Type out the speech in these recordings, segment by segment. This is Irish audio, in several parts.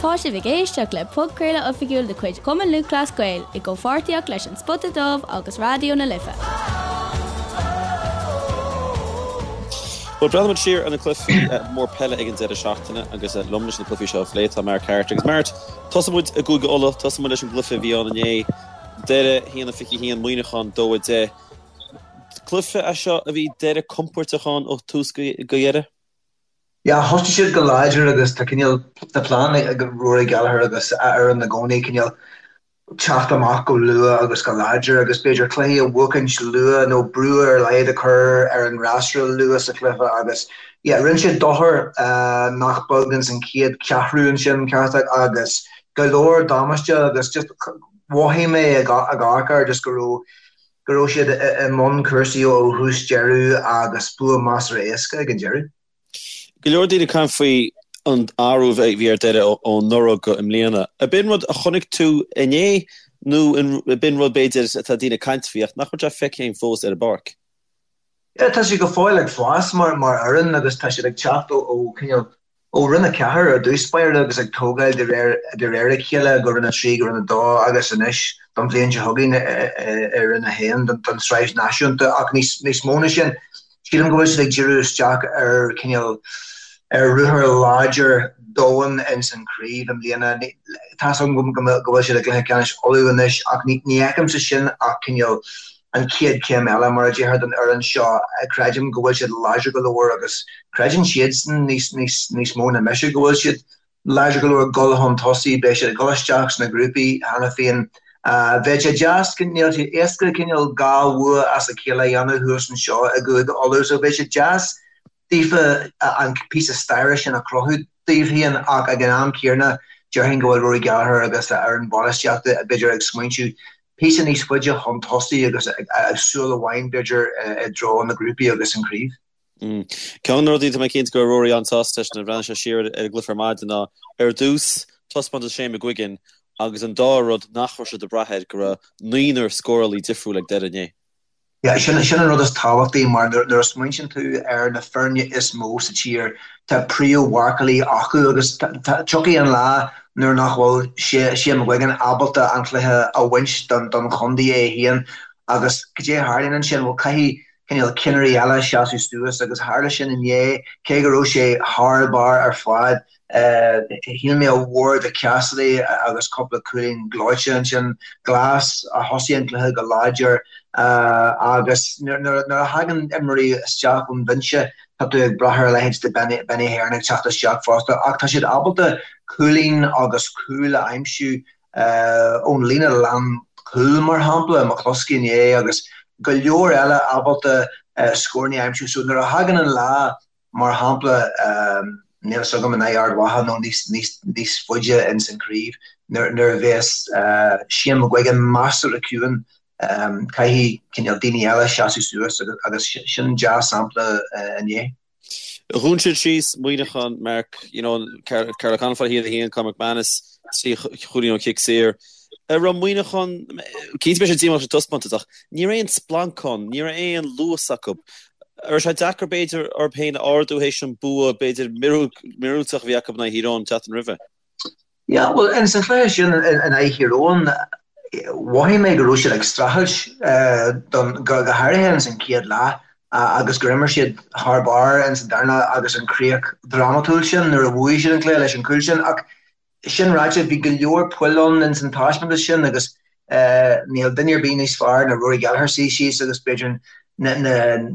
Tá sibh ag éisteacht le podchraoladh oifigiúil de chuid Chumann Lúthchleas Gael i gcomhpháirtíocht leis An Spota Dubh agus Raidió na Life. Bhuel, breathnaíonn muid siar ar na cluichí mór peile ag an deireadh seachtaine agus liom leis na cluichí seo a phlé tá Mark Harte. Agus Mark, tosóidh muid i gCúige Uladh, tosóidh muid leis an gcluiche a bhí ann inné, Doire 1-21, Muineachán 2-10. Cluiche é seo a bhí Doire compóirteach ann ó thús go deireadh? Yeah, thosaigh siad go láidir agus tá cineál, tá plean ag Rory Gallagher agus a fhoireann i gcónaí cineál teacht amach go luath agus go láidir agus b'fhéidir cluichí a bhuachaint luath nó brú ar a laghad a chur ar an fhreasúra luath sa chluiche agus yeah, rinne siad dochar nach beag ins an chéad cheathrú ansin ceart agus go leor damáiste agus just mhothaigh mé ag amharc air just go raibh go raibh siad i mbun cúrsaí ó thús deireadh agus bua measartha éasca ag an deireadh. Go leor daoine ag caint faoi an athrú a bhí ar Doire ó anuraidh go i mbliana. Ab in rud a chonaic tú inné nó ab in rud b'fhéidir atá daoine ag caint faoi ach nach bhfuil sé feicthe againn fós ar an bpáirc? Yeah, tá siad go fóill ag fás mar fhoireann agus tá siad ag teacht ó cineál ó Roinn 4 ar dtús báire agus ag tógáil de réir de réir a chéile go Roinn 3 go Roinn 2 agus anois don bhliain seo chugainn i Roinn 1 don tsraith náisiúnta ach níos níos mó na sin sílim go bhfuil siad ag díriú isteach ar cineál ar ruathar láidir domhain ins an chraobh i mbliana. Tá's agam go go bhfuil siad i gcluiche ceannais Uladh anois ach ní ní fheicimse sin ach cineál an chéad chéim eile, mar a déarfá, don fhoireann seo. Creidim go bhfuil siad láidir go leor agus creideann siadsan níos, níos, níos mó ná mise go bhfuil siad láidir go leor dul chun tosaigh. Beidh siad ag dul isteach sna grúpaí cheana féin. Bheadh sé deas, níl sé éasca cineál dhá bhua as a chéile a dhéanamh thuas anseo i gCúige Uladh so bheadh sé deas daofa an píosa staire sin a chruthú daoibh féin ach ag an am céanna déarfainn go bhfuil Rory Gallagher agus a fhoireann bainistíochta b'fhéidir ag smaointiú píosa níos faide chun tosaigh agus súil amháin b'fhéidir i dtreo na grúpaí agus an chraobh. Ceann de na rudaí atá mé cinnte go raibh Rory an-sásta leis nuair a bhreathnaigh sé siar ar an gcluiche ar maidin ná ar dtús taispeántas Shane McGuigan agus an dara rud nach raibh siad ag brath air go raibh naonúr scórálaí difriúil ag Doire inné. Yeah, sin sin an rud is tábhachtaí mar nuair a smaointíonn tú ar na foirne is mó sa tír, tá príomh-mharcálaí acu agus tiocfaidh an lá nuair nach bhfuil Shane McGuigan ábalta an cluiche a bhaint don don chontae é féin agus cad é a tharlaíonn ansin? Bhuel, caithfidh cineál cinnirí eile seasamh suas agus tharla sin inné, cé go raibh sé thar barr ar fad. Shíl mé ar mhór do Cassidy agus cúpla cúilín gleoite ansin. Glass a thosaigh an cluiche go láidir agus nuair a thagann imreoirí isteach ón bhinse tá tú ag brath ar a leithéid de Benny Heron ag teacht isteach fosta ach tá siad ábalta cúilín agus cúl a aimsiú ón líne lánchúil mar shampla, McCluskey inné agus go leor eile ábalta scóranna a aimsiú. So nuair a thagann an lá Mar shampla, níl a fhios agam in aghaidh Ard Mhacha nó níos, níos, níos faide ins an chraobh, nuair, nuair a bheas Shane McGuigan measartha ciúin, caithfidh cineál daoine eile seasamh suas agus, agus sin dea-sampla inné. Dhún siad síos Muineachán, Mark, you know, Karl O'Connell fá 1-1, Conor McManus, 3 chúilín ón chic saor. An raibh Muineachán, cinnte beidh siad díomách leis an taispeántas ach ní raibh aon splanc ann, ní raibh aon luas acu. An raibh sé deacair b'fhéidir orthu féin a ardú théis an bua b'fhéidir míorúilteach a bhí acu in aghaidh Thír Eoghain an tseachtain roimhe? Yeah, bhuel, ins an chluiche sin in aghaidh Thír Eoghain, mhothaigh mé go raibh siad ag streachailt don, go háirithe ins an chéad leath agus gur imir siad thar barr ins an darna leath agus an chríoch dhrámatúil sin nuair a bhuaigh siad an cluiche leis an gcúl sin ach Sin ráite, bhí go leor poill ann ins an taispeántas sin agus níl duine ar bith níos fearr ná Rory Gallagher suí síos agus b'fhéidir na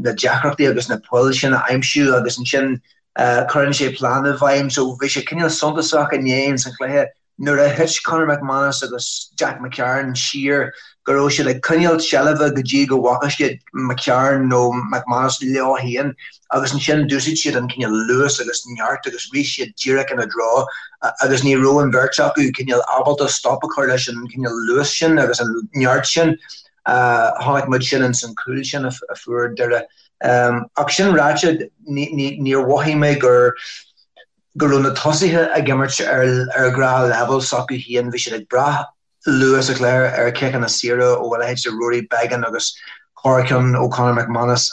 deacrachtaí agus na poill sin a aimsiú agus ansin cuireann sé plean i bhfeidhm. So bhí sé cineál suntasach inné ins an chluiche nuair a thit Conor McManus agus Jack McCarron siar go raibh siad ag coinneáil seilbhe go dtí go bhfaca siad McCarron nó McManus leo féin agus ansin d'úsáid siad an cineál luas agus neart agus rith siad díreach ina dtreo agus ní raibh an bheirt acu cineál ábalta stop a chur leis an cineál luas sin agus an neart sin. Chonaic muid sin ins an cúl sin a fuair Doire. Ach sin ráite, níor mhothaigh mé gur go raibh na tosaithe ag imirt ar ar ghnáthleibhéal s'acu féin, bhí siad ag brath luath sa chluiche ar chiceanna saora ó a leithéid de Rory Beggan agus corrcheann ó Conor McManus.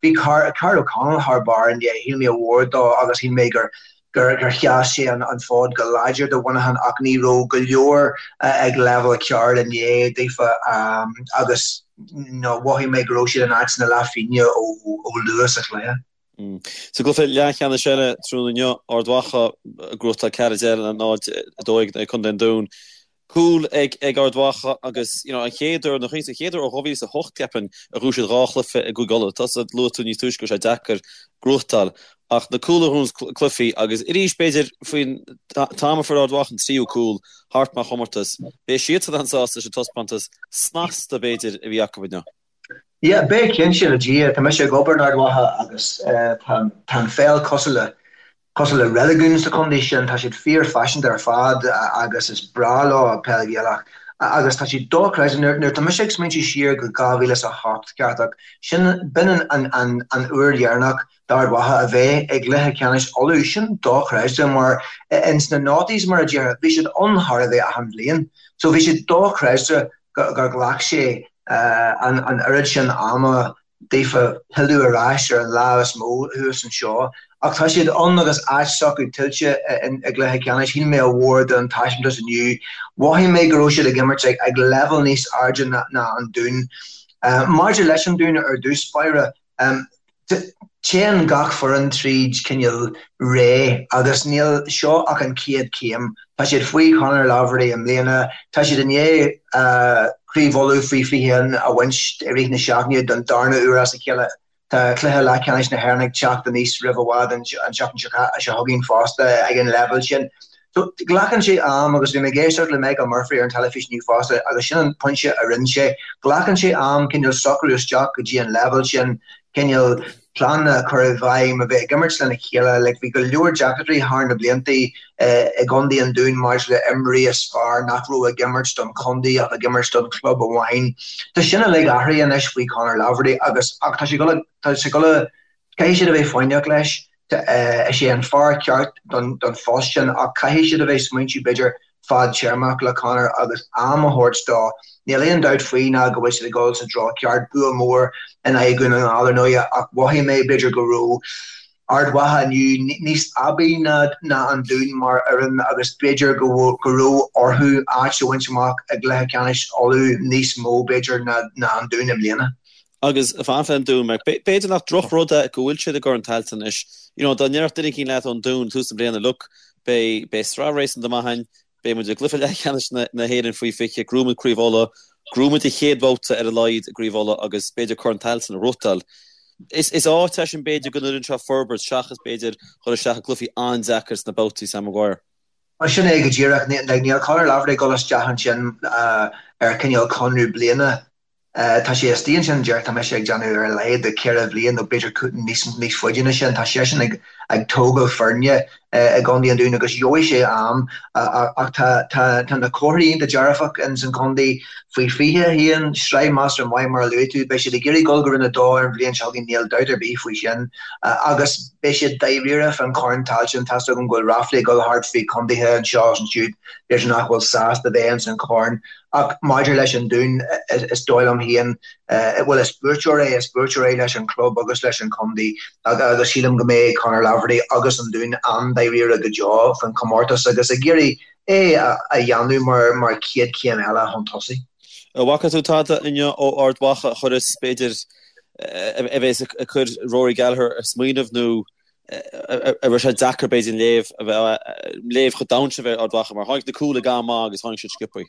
Bhí Karl O'Connell thar barr inné, shíl mé ar mhór dó agus shíl mé gur. gur sheas sé an fód go láidir do Mhuineachán ach ní raibh go leor ag leibhéal ceart inné daofa agus mhothaigh mé go raibh siad in áit na leathphingine ó luath sa chluiche. Sa gcluiche leathcheannais eile tráthnóna inniu, Ard Mhacha ag gnóthachtáil 4-10 le 0-12 in aghaidh Contae an Dúin. Cúl ag ag Ard Mhacha agus you know an chéad uair, nó an chéad uair ó 2008 ceapaim a ghnóthaigh siad dhá chluiche i gCúige Uladh. Tusa, luaigh tú níos túisce go raibh sé deacair gnóthachtáil ach na cúil a ghnóthaíonn cluichí agus arís b'fhéidir faoin t-am a fuair Ard Mhacha an tríú cúl thart mar chomórtas, beidh siadsan an-sásta leis an taispeántas snasta b'fhéidir a bhí acu inniu. Yeah, beidh cinnte le Dia. Tá mise ag obair in Ard Mhacha agus tá an pheil cosúil le Cosúil le reiligiún sa chontae sin, tá siad fíorphaiseanta ar fad agus is breá leo peil Ghaelach. Agus tá siad dochreidte. Nuair atá mise ag smaointiú siar go 2008, ceart, sin, b'in an an uair dheireanach d'Ard Mhacha a bheith i gcluiche ceannais Uladh. Sin dochreidte mar ins na noughties, mar a déarfá, bhí siad ann chóir a bheith achan bhliain. So bhí siad dochreidte gur ghlac sé an oiread sin ama daofa pilleadh ar ais ar an lámh is mó thuas anseo. Ach tá siad ann agus áit s'acu tuillte i gcluiche ceannais. Shíl mé a mhór den taispeántas inniu. Mhothaigh mé go raibh siad ag imirt ag leibhéal níos airde ná an Dún. Maidir leis an Dún ar dtús báire, Téann gach foireann tríd cineál ré agus níl seo ach an chéad chéim. Tá siad faoi Conor Laverty i mbliana. Tá siad i ndiaidh Craobh Uladh faoi 21 a bhaint i rith na seachtaine don darna uair as a chéile. Tá cluiche leathcheannais na hÉireann ag teacht aníos roimh i bhfad an tseachtain seo chugainn fosta ag an leibhéal sin. So, glacann sé am agus bhí mé ag éisteacht le Michael Murphy ar an teilifís inniu fosta agus sin an pointe a rinne sé. Glacann sé am cineál socrú isteach go dtí an leibhéal sin, cineál pleananna a chur i bhfeidhm, a bheith ag imirt lena chéile. Like, bhí go leor deacrachtaí thar na blianta i gcontae an Dúin maidir le imreoirí is fearr nach raibh ag imirt don chontae ach ag imirt don chlub amháin. Tá sin uilig athraithe anois faoi Conor Laverty agus ach tá sé ag tá sé ag dul caithfidh siad a bheith foighneach leis. Is é an fear ceart don phost sin ach caithfidh siad a bheith smaointiú b'fhéidir fadtéarmach le Conor agus am a thabhairt dó. Níl aon dabht faoi ná go bhfuil siad ag dul sa treo ceart, bua mór in aghaidh Dhún na nGall ar ndóighe ach mhothaigh mé b'fhéidir go raibh Ard Mhacha inniu níos aibí ná an Dún mar fhoireann agus b'fhéidir go raibh orthu áit a bhaint amach i gcluiche ceannais Uladh níos mó b'fhéidir ná an Dún i mbliana. Agus fanacht le an Dún, Mark, b'fhéidir nach drochrud é go bhfuil siad i gCorn Tailteann anois. You know, dá ndéarfadh duine éicint leat ón Dún tús na bliana, look, beidh, beidh sraith réasúnta maith againn, beidh muid i gcluiche leathcheannais na, na hÉireann faoi 20, gnóthóidh muid Craobh Uladh, gnóthóidh muid an chéad bhabhta ar a laghad i gCraobh Uladh agus b'fhéidir Corn Tailteann a ghnóthachtáil. Is, is áit é sin b'fhéidir go n-oireann sé forbairt seachas b'fhéidir dhul isteach i gcluichí an-deacair sna babhtaí, Sam Maguire. Sin é go díreach. Níl Conor Laverty ag dul isteach ansin ar cineál conradh bliana. Tá sé istigh ansin, deir, tá mise ag déanamh ar a laghad de cheithre bhliain nó b'fhéidir níos níos faide ná sin. Tá seisean ag ag tógáil foirne i gContae an Dúin agus gheobhaidh sé am ach tá tá tá na comharthaí iontach dearfach ins an chontae faoi 21, sraith measartha maith mar a luaigh tú. Beidh siad ag iarraidh dul go Roinn 2 ar an bhliain seo chugainn, níl dabht ar bith faoi sin. Agus beidh siad dáiríre fán Chorn Tailteann, tá's agam go bhfuil ráflaí ag dul thart faoi chontaetha anseo agus ansiúd, b'fhéidir nach bhfuil sásta bheith ins an chorn. Ach maidir leis an Dún, is dóigh liom féin, bhuel, is buaiteoir é, is buaiteoir é leis an chlub agus leis an chontae agus sílim go mbeidh Conor Laverty agus an Dún an-dáiríre go deo faoin chomórtas agus ag iarraidh é a dhéanamh mar mar chéad chéim eile chun tosaigh. An bhfaca tú tada inniu ó Ard Mhacha a chuireas, b'fhéidir, a bheas ag cur Rory Gallagher ag smaoineamh nó an raibh sé deacair b'fhéidir an léamh a bheith, léamh chomh domhain sin a bheith ar Ard Mhacha mar tháinig na cúil ag am maith agus tháinig siad sciobthaí.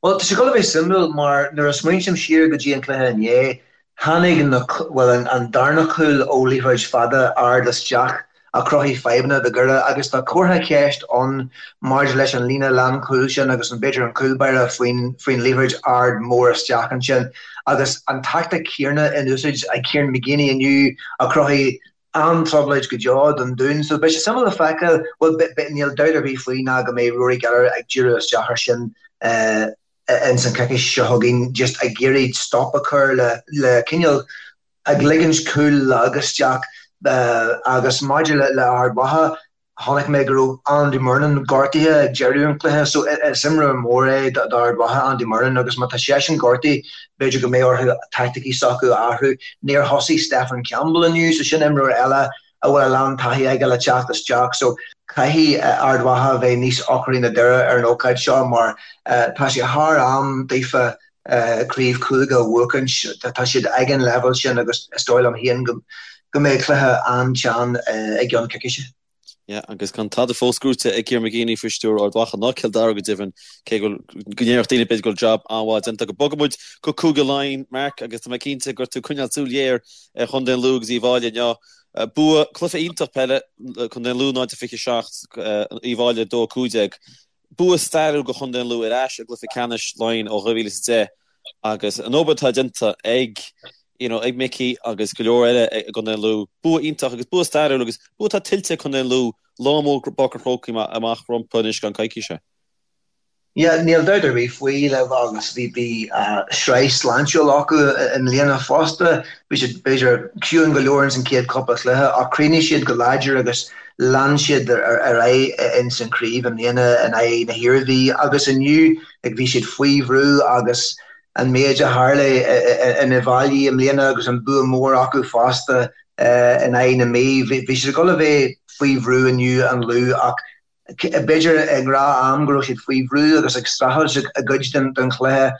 Bhuel, tá sé ag dul a bheith suimiúil mar nuair a smaointím siar go dtí an cluiche inné, tháinig na, bhuel, an darna cúl ó liathróid fada ard isteach a chruthaigh fadhbanna do Dhoire agus tá comhartha ceist ann maidir leis an líne lánchúil sin agus an b'fhéidir an cúl báire faoin faoin liathróid ard mór isteach ansin agus an tactic chéanna in úsáid ag Kieran McGeeney inniu a chruthaigh an-trioblóid go deo don Dún. So beidh sé suimiúil le feiceáil, bhuel níl dabht ar bith faoi ná go mbeidh Rory Gallagher ag díriú isteach ar sin ins an choicís seo chugainn, just ag iarraidh stop a chur le le cineál ag ligint cúl lag isteach agus maidir le le Ard Mhacha, Chonaic mé go raibh Andy Murnin gortaithe ag deireadh an chluiche so is imreoir mór é d'Ard Mhacha, Andy Murnin, agus má tá seisean gortaithe b'fhéidir go mbeidh orthu taicticí s'acu a athrú. Níor thosaigh Stephen Campbell inniu so sin imreoir eile a bhfuil a lán taithí aige le teacht isteach so. Caithfidh Ard Mhacha a bheith níos ocraí ná Doire ar an ócáid seo mar tá sé thar am daofa craobh cúige a bhuachaint. Tá siad ag an leibhéal sin agus is dóigh liom féin go mbeidh cluiche an-teann i gceann coicíse. Yeah, agus gan tada fós gnóite ag Kieran McGeeney faoi stiúir Ard Mhacha ná Cill Dara go deimhin, cé go bhfuil, go ndéarfadh daoine b'fhéidir go bhfuil jab an-mhaith déanta acu. Bogfaidh muid go Cúige Laighean, Mark, agus tá mé cinnte go raibh tú ag coinneáil súil ghéar ar Chontae an Lú agus Uíbh Fháilí inniu. Bua, cluiche iontach peile, Contae an Lú 0-27, Uíbh Fháilí 2-15. Bua stairiúil do Chontae an Lú ar ais i gcluiche ceannais Laighean ó 2010 agus an obair atá déanta ag you know ag Mickey agus go leor eile i gContae an Lú, bua iontach agus bua stairiúil agus bua atá tuillte ag Contae an Lú, lá mór i bPáirc an Chrócaigh amach rompu anois i gceann coicíse. Yeah, níl dabht ar bith faoi le agus bhí bhí sraith sláintiúil acu i mbliana fosta. Bhí siad b'fhéidir ciúin go leor ins an chéad cúpla cluiche ach chríochnaigh siad go láidir agus lean siad ar aghaidh ins an chraobh i mbliana in aghaidh na hIarmhí agus inniu like bhí siad faoi bhrú agus an méid a tharla in Uíbh Fhailí i mbliana agus an bua mór acu fosta in aghaidh na Mí. Bhí siad ag dul a bheith faoi bhrú inniu an Lú ach B'fhéidir i ngnáth-am go raibh siad faoi bhrú agus ag streachailt i gcuid den chluiche.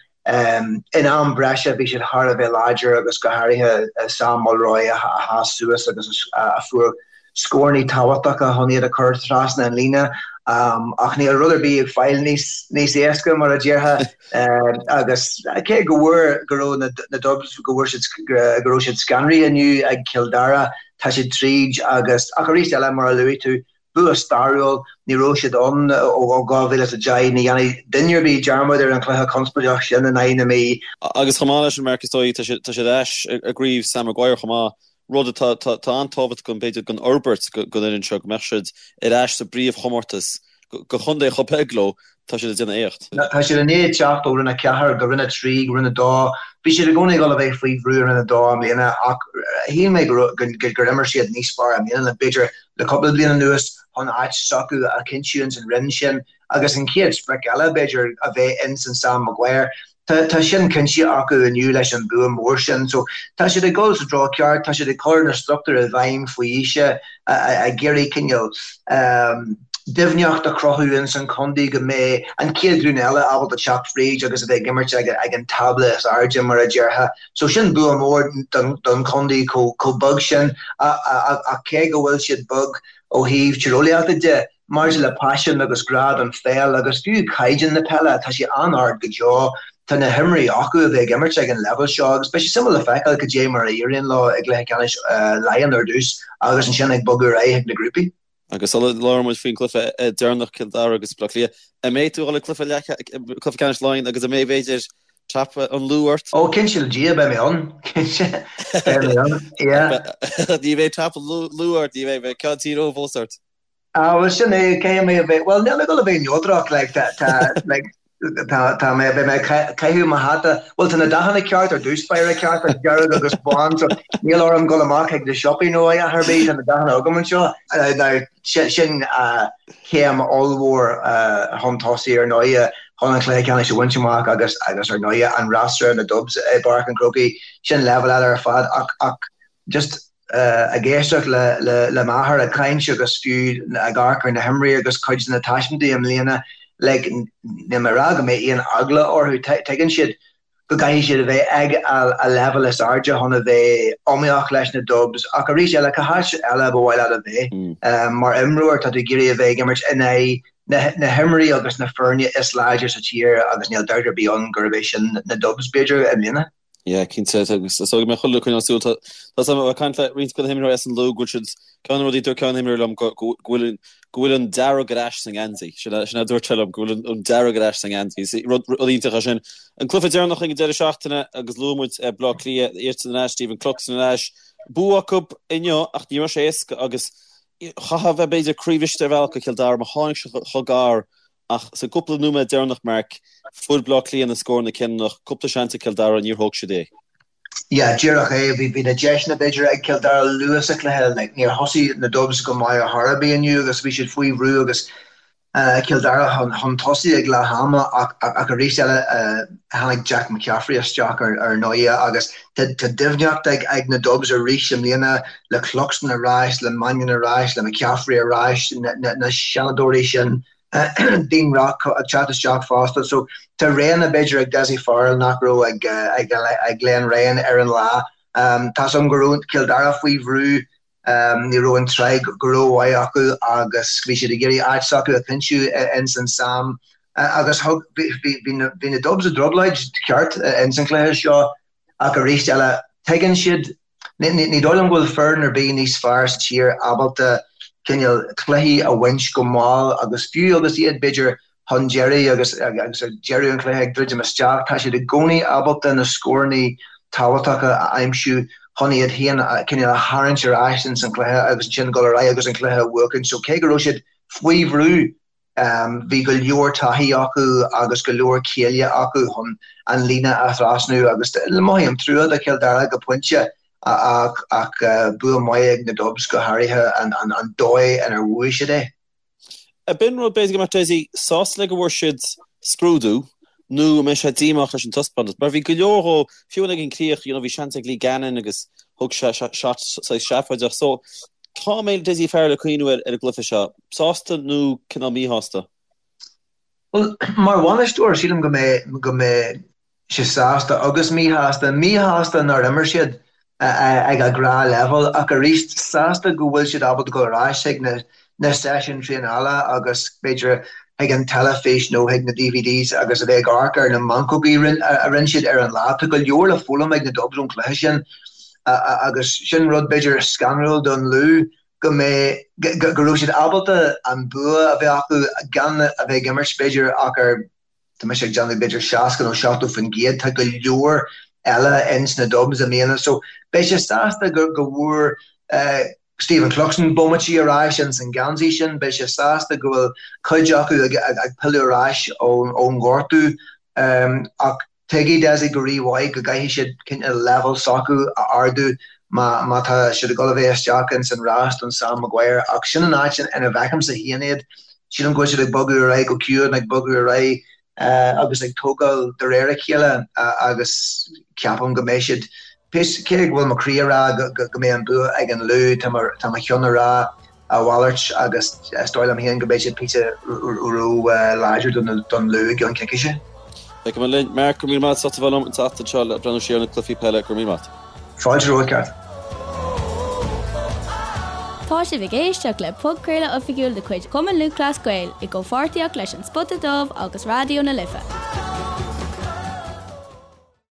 In am breise bhí siad thar a bheith láidir agus go háirithe Sam Mulroy a sheas suas agus a fuair scóranna tábhachtacha chun iad a chur trasna an líne. Ach níl rud ar bith ag fáil níos éasca mar a déarfá agus cé go bhfuair go raibh na Dubs go bhfuair siad go raibh siad scanraithe inniu ag Cill Dara, tá siad tríd agus ach arís eile mar a luaigh tú Bua stairiúil, ní raibh siad ann ó 2010, ní dhéanfaidh duine ar bith dearmad ar an chluiche conspóideach sin in aghaidh na Mí. Agus chomh maith leis sin, Mark, is dóigh, tá siad ar ais i gcraobh Sam Maguire chomh maith, rud atá an-tábhachtach don, b'fhéidir, don fhorbairt don fhoireann seo, go mbeadh siad ar ais sa bpríomhchomórtas. Do chontae chomh beag leo, tá siad ag déanamh éacht. Tá siad i ndiaidh teacht ó Roinn 4 go Roinn 3 go Roinn 2. Bhí siad i gcónaí ag dul a bheith faoi bhrú i Roinn 2 i mbliana ach shíl mé gur imir siad níos fearr i mbliana ná b'fhéidir le cúpla bliain anuas chun áit s'acu a chinntiú ins an roinn sin agus an chéad sprioc eile b'fhéidir a bheith ins an Sam Maguire. Tá tá sin cinnte acu inniu leis an bua mór sin. So tá siad ag dul sa treo ceart, tá siad ag cur na struchtúir i bhfeidhm faoi aois, ag iarraidh cineál doimhneacht a chruthú ins an chontae go mbeidh an chéad ghlúin eile ábalta teacht fríd agus a bheith ag imirt ag ag an tábla is airde mar a déarfá. So sin bua mór don don chontae chomh chomh beag sin ach cé go bhfuil siad beag ó thaobh tíreolaíochta de, Maidir le paisean agus grá don pheil agus fiú caighdeán na peile, tá sé an-ard go deo. Tá na himreoirí acu a bheith ag imirt ag an leibhéal seo agus beidh sé suimiúil le feiceáil cad é mar a éiríonn leo i gcluiche ceannais Laighean ar dtús agus ansin ag bogadh ar aghaidh chuig na grúpaí. Agus sula labhraíonn muid faoin gcluiche deireanach, Cill Dara agus Baile Átha Cliath, an mbeidh tú ag dul ag cluiche ceannais Laighean agus an mbeidh, b'fhéidir, cnaipe an Lú ort? Ó, cinnte le Dia, beidh mé ann. Cinnte, beidh mé ann, yeah. Ní bheidh cnaipe an Lú ort, ní bheidh, beidh ceann Tír Eoghain fós ort. Ah, bhuel sin é, caithfidh mé a bheith, bhuel níl mé ag dul a bheith neodrach, like, tá, tá, like, tá, tá mé, beidh mé ag caitheamh mo hata, bhuel tá na dathanna ceart ar dtús báire ceart, an dearg agus bán, so níl orm dul amach chuig na siopaí nó a dhath ar bith, tá na dathanna agam anseo. Now, sin, sin céim ollmhór chun tosaigh ar ndóighe chun an cluiche ceannais a bhaint amach agus, agus ar ndóighe an fhreasúra na Dubs i bPáirc an Chrócaigh, sin leibhéal eile ar fad ach, ach just, ag éisteacht le m'athair ag caint agus fiú ag amharc ar na himreoirí agus cuid de na taispeántais i mbliana, like, níl mé ag rá go mbeidh aon eagla orthu, tuigeann siad go gcaithfidh siad a bheith ag a leibhéal is airde chun a bheith iomaíoch leis na Dubs ach arís eile, cá háit eile ba mhaith leat a bheith? Mar imreoir, tá tú ag iarraidh a bheith ag imirt in aghaidh na himreoirí agus na foirne is láidre sa tír agus níl dabht ar bith ann gurb é sin na Dubs, b'fhéidir, i mbliana. Yeah, cinnte, agus is dóigh go mbeidh chuile dhuine ag coinneáil súil. Tá a fhios agam ó ag caint le roinnt de na himreoirí as an Lú go bhfuil siad, ceann de na rudaí a dúirt ceann de na himreoirí liom go bhfuil an, go bhfuil an dearg ar ais sa ngeansaí. Sin a, sin a dúirt sé liom, go bhfuil an dearg ar ais sa ngeansaí. Is rud, rud iontach é sin. An cluiche deireanach ag an deireadh seachtaine agus luaigh muid Baile Átha Cliath, iadsan ar ais, Stephen Cluxton ar ais. Bua acu inniu ach ní raibh sé éasca agus chaithfeá a bheith b'fhéidir croíbhriste ar bhealach do Chill Dara mar tháinig siad chomh gar Ach sa gcúpla nóiméad deireanach, Mark, fuair Bleá Cliath na scóranna cinniúnach, cúpla seans ag Cill Dara, níor thóg siad é. Yeah, díreach é. Bhí na deiseanna b'fhéidir ag Cill Dara luath sa chluiche. Like, níor thosaigh na Dubs go maith ar chor ar bith inniu agus bhí siad faoi bhrú agus. Cill Dara chun tosaigh ag leath ama ach arís eile tháinig Jack McCaffrey isteach ar ndóigh agus tá doimhneacht ag na Dubs arís i mbliana le Cluxton ar ais, le Mannion ar ais, le McCaffrey ar ais, na seanadóirí sin, Dean Rock ag teacht isteach fosta. So tá roghanna b'fhéidir ag Dessie Farrell nach raibh ag Glenn Ryan ar an lá. Tá's agam go raibh Cill Dara faoi bhrú Ní raibh an tsraith go rómhaith acu agus bhí siad ag iarraidh áit s'acu a chinntiú ins an Sam agus thug, bhí na Dubs i dtrioblóid ceart ins an chluiche seo ach arís eile tuigeann siad, ní dóigh liom go bhfuil foireann ar bith níos fearr sa tír ábalta cineál cluichí a bhaint go mall agus fiú agus iad b'fhéidir chun deiridh agus agus ag deireadh an chluiche ag druidim isteach, tá siad i gcónaí ábalta na scóranna tábhachtacha a aimsiú chun iad féin cineál a tharraingt ar ais ins an chluiche agus ansin dul ar aghaidh agus an cluiche a bhuachaint. So cé go raibh siad faoi bhrú, bhí go leor taithí acu agus go leor céille acu chun an líne a thrasnú agus mothaím trua do Chill Dara go pointe ach ach bua maith ag na Dubs go háirithe an dóigh inar bhuaigh siad é. B'in rud, b'fhéidir go mbeadh Dessie sásta le go bhfuair siad scrúdú nó an mbeidh sé díomách leis an taispeántas mar bhí go leor dhó, fiú ag an críoch, you know, bhí seans ag Lee Gannon agus thug sé shot saghas seafóideach. So, cá mbeidh Dessie Farrell ag cuimhniú ar an gcluiche seo? Sásta nó cineál míshásta? Bhuel, mar bhainisteoir, sílim go mbeidh, go mbeidh sé sásta agus míshásta. Míshásta nár imir siad ag a ngnáthleibhéal ach arís sásta go bhfuil siad ábalta dul ar ais chuig na seisiúin traenála agus b'fhéidir chuig an teilifís nó chuig na DVDs agus a bheith ag amharc ar na meancógaí a rinne siad ar an lá. Tá go leor le foghlaim ag na Dubs ón chluiche sin agus sin rud b'fhéidir scanrúil don Lú go mbeidh, go raibh siad ábalta an bua a bheith acu gan a bheith ag imirt b'fhéidir ach ar Tá mise ag déanamh b'fhéidir 60 nó 70%, tá go leor eile ins na Dubs i mbliana so beidh sé sásta go go bhfuair Stephen Cluxton bomaití ar ais ins an geansaí sin, beidh sé sásta go bhfuil cuid acu ag ag pilleadh ar ais ón ngortú ach tuigfidh Dessie go rí-mhaith go gcaithfidh siad cineál leibhéal s'acu a ardú má má tá siad ag dul a bheith isteach ins an rás don Sam Maguire ach sin an áit ina bhfeicimse féin iad. Sílim go bhfuil siad ag bogadh ar aghaidh go ciúin, ag bogadh ar aghaidh agus ag tógáil de réir a chéile agus ceapaim go mbeidh siad, cé go bhfuil mo chroí ag rá go mbeidh an bua ag an Lú, tá mo cheann ag rá a mhalairt agus is dóigh liom féin go mbeidh siad píosa ró-láidir don Lú i gceann coicíse. Feicfimid linn. Mark, go raibh míle maith agat as ucht a bheith liom an tseachtain seo le breathnú siar ar na cluichí peile. Go raibh míle maith agat. Fáilte romhat, Ceart. Tá sibh ag éisteacht le podchraoladh oifigiúil de chuid Chumann Lúthchleas Gael i gcomhpháirtíocht leis An Spota Dubh agus Raidió na Life.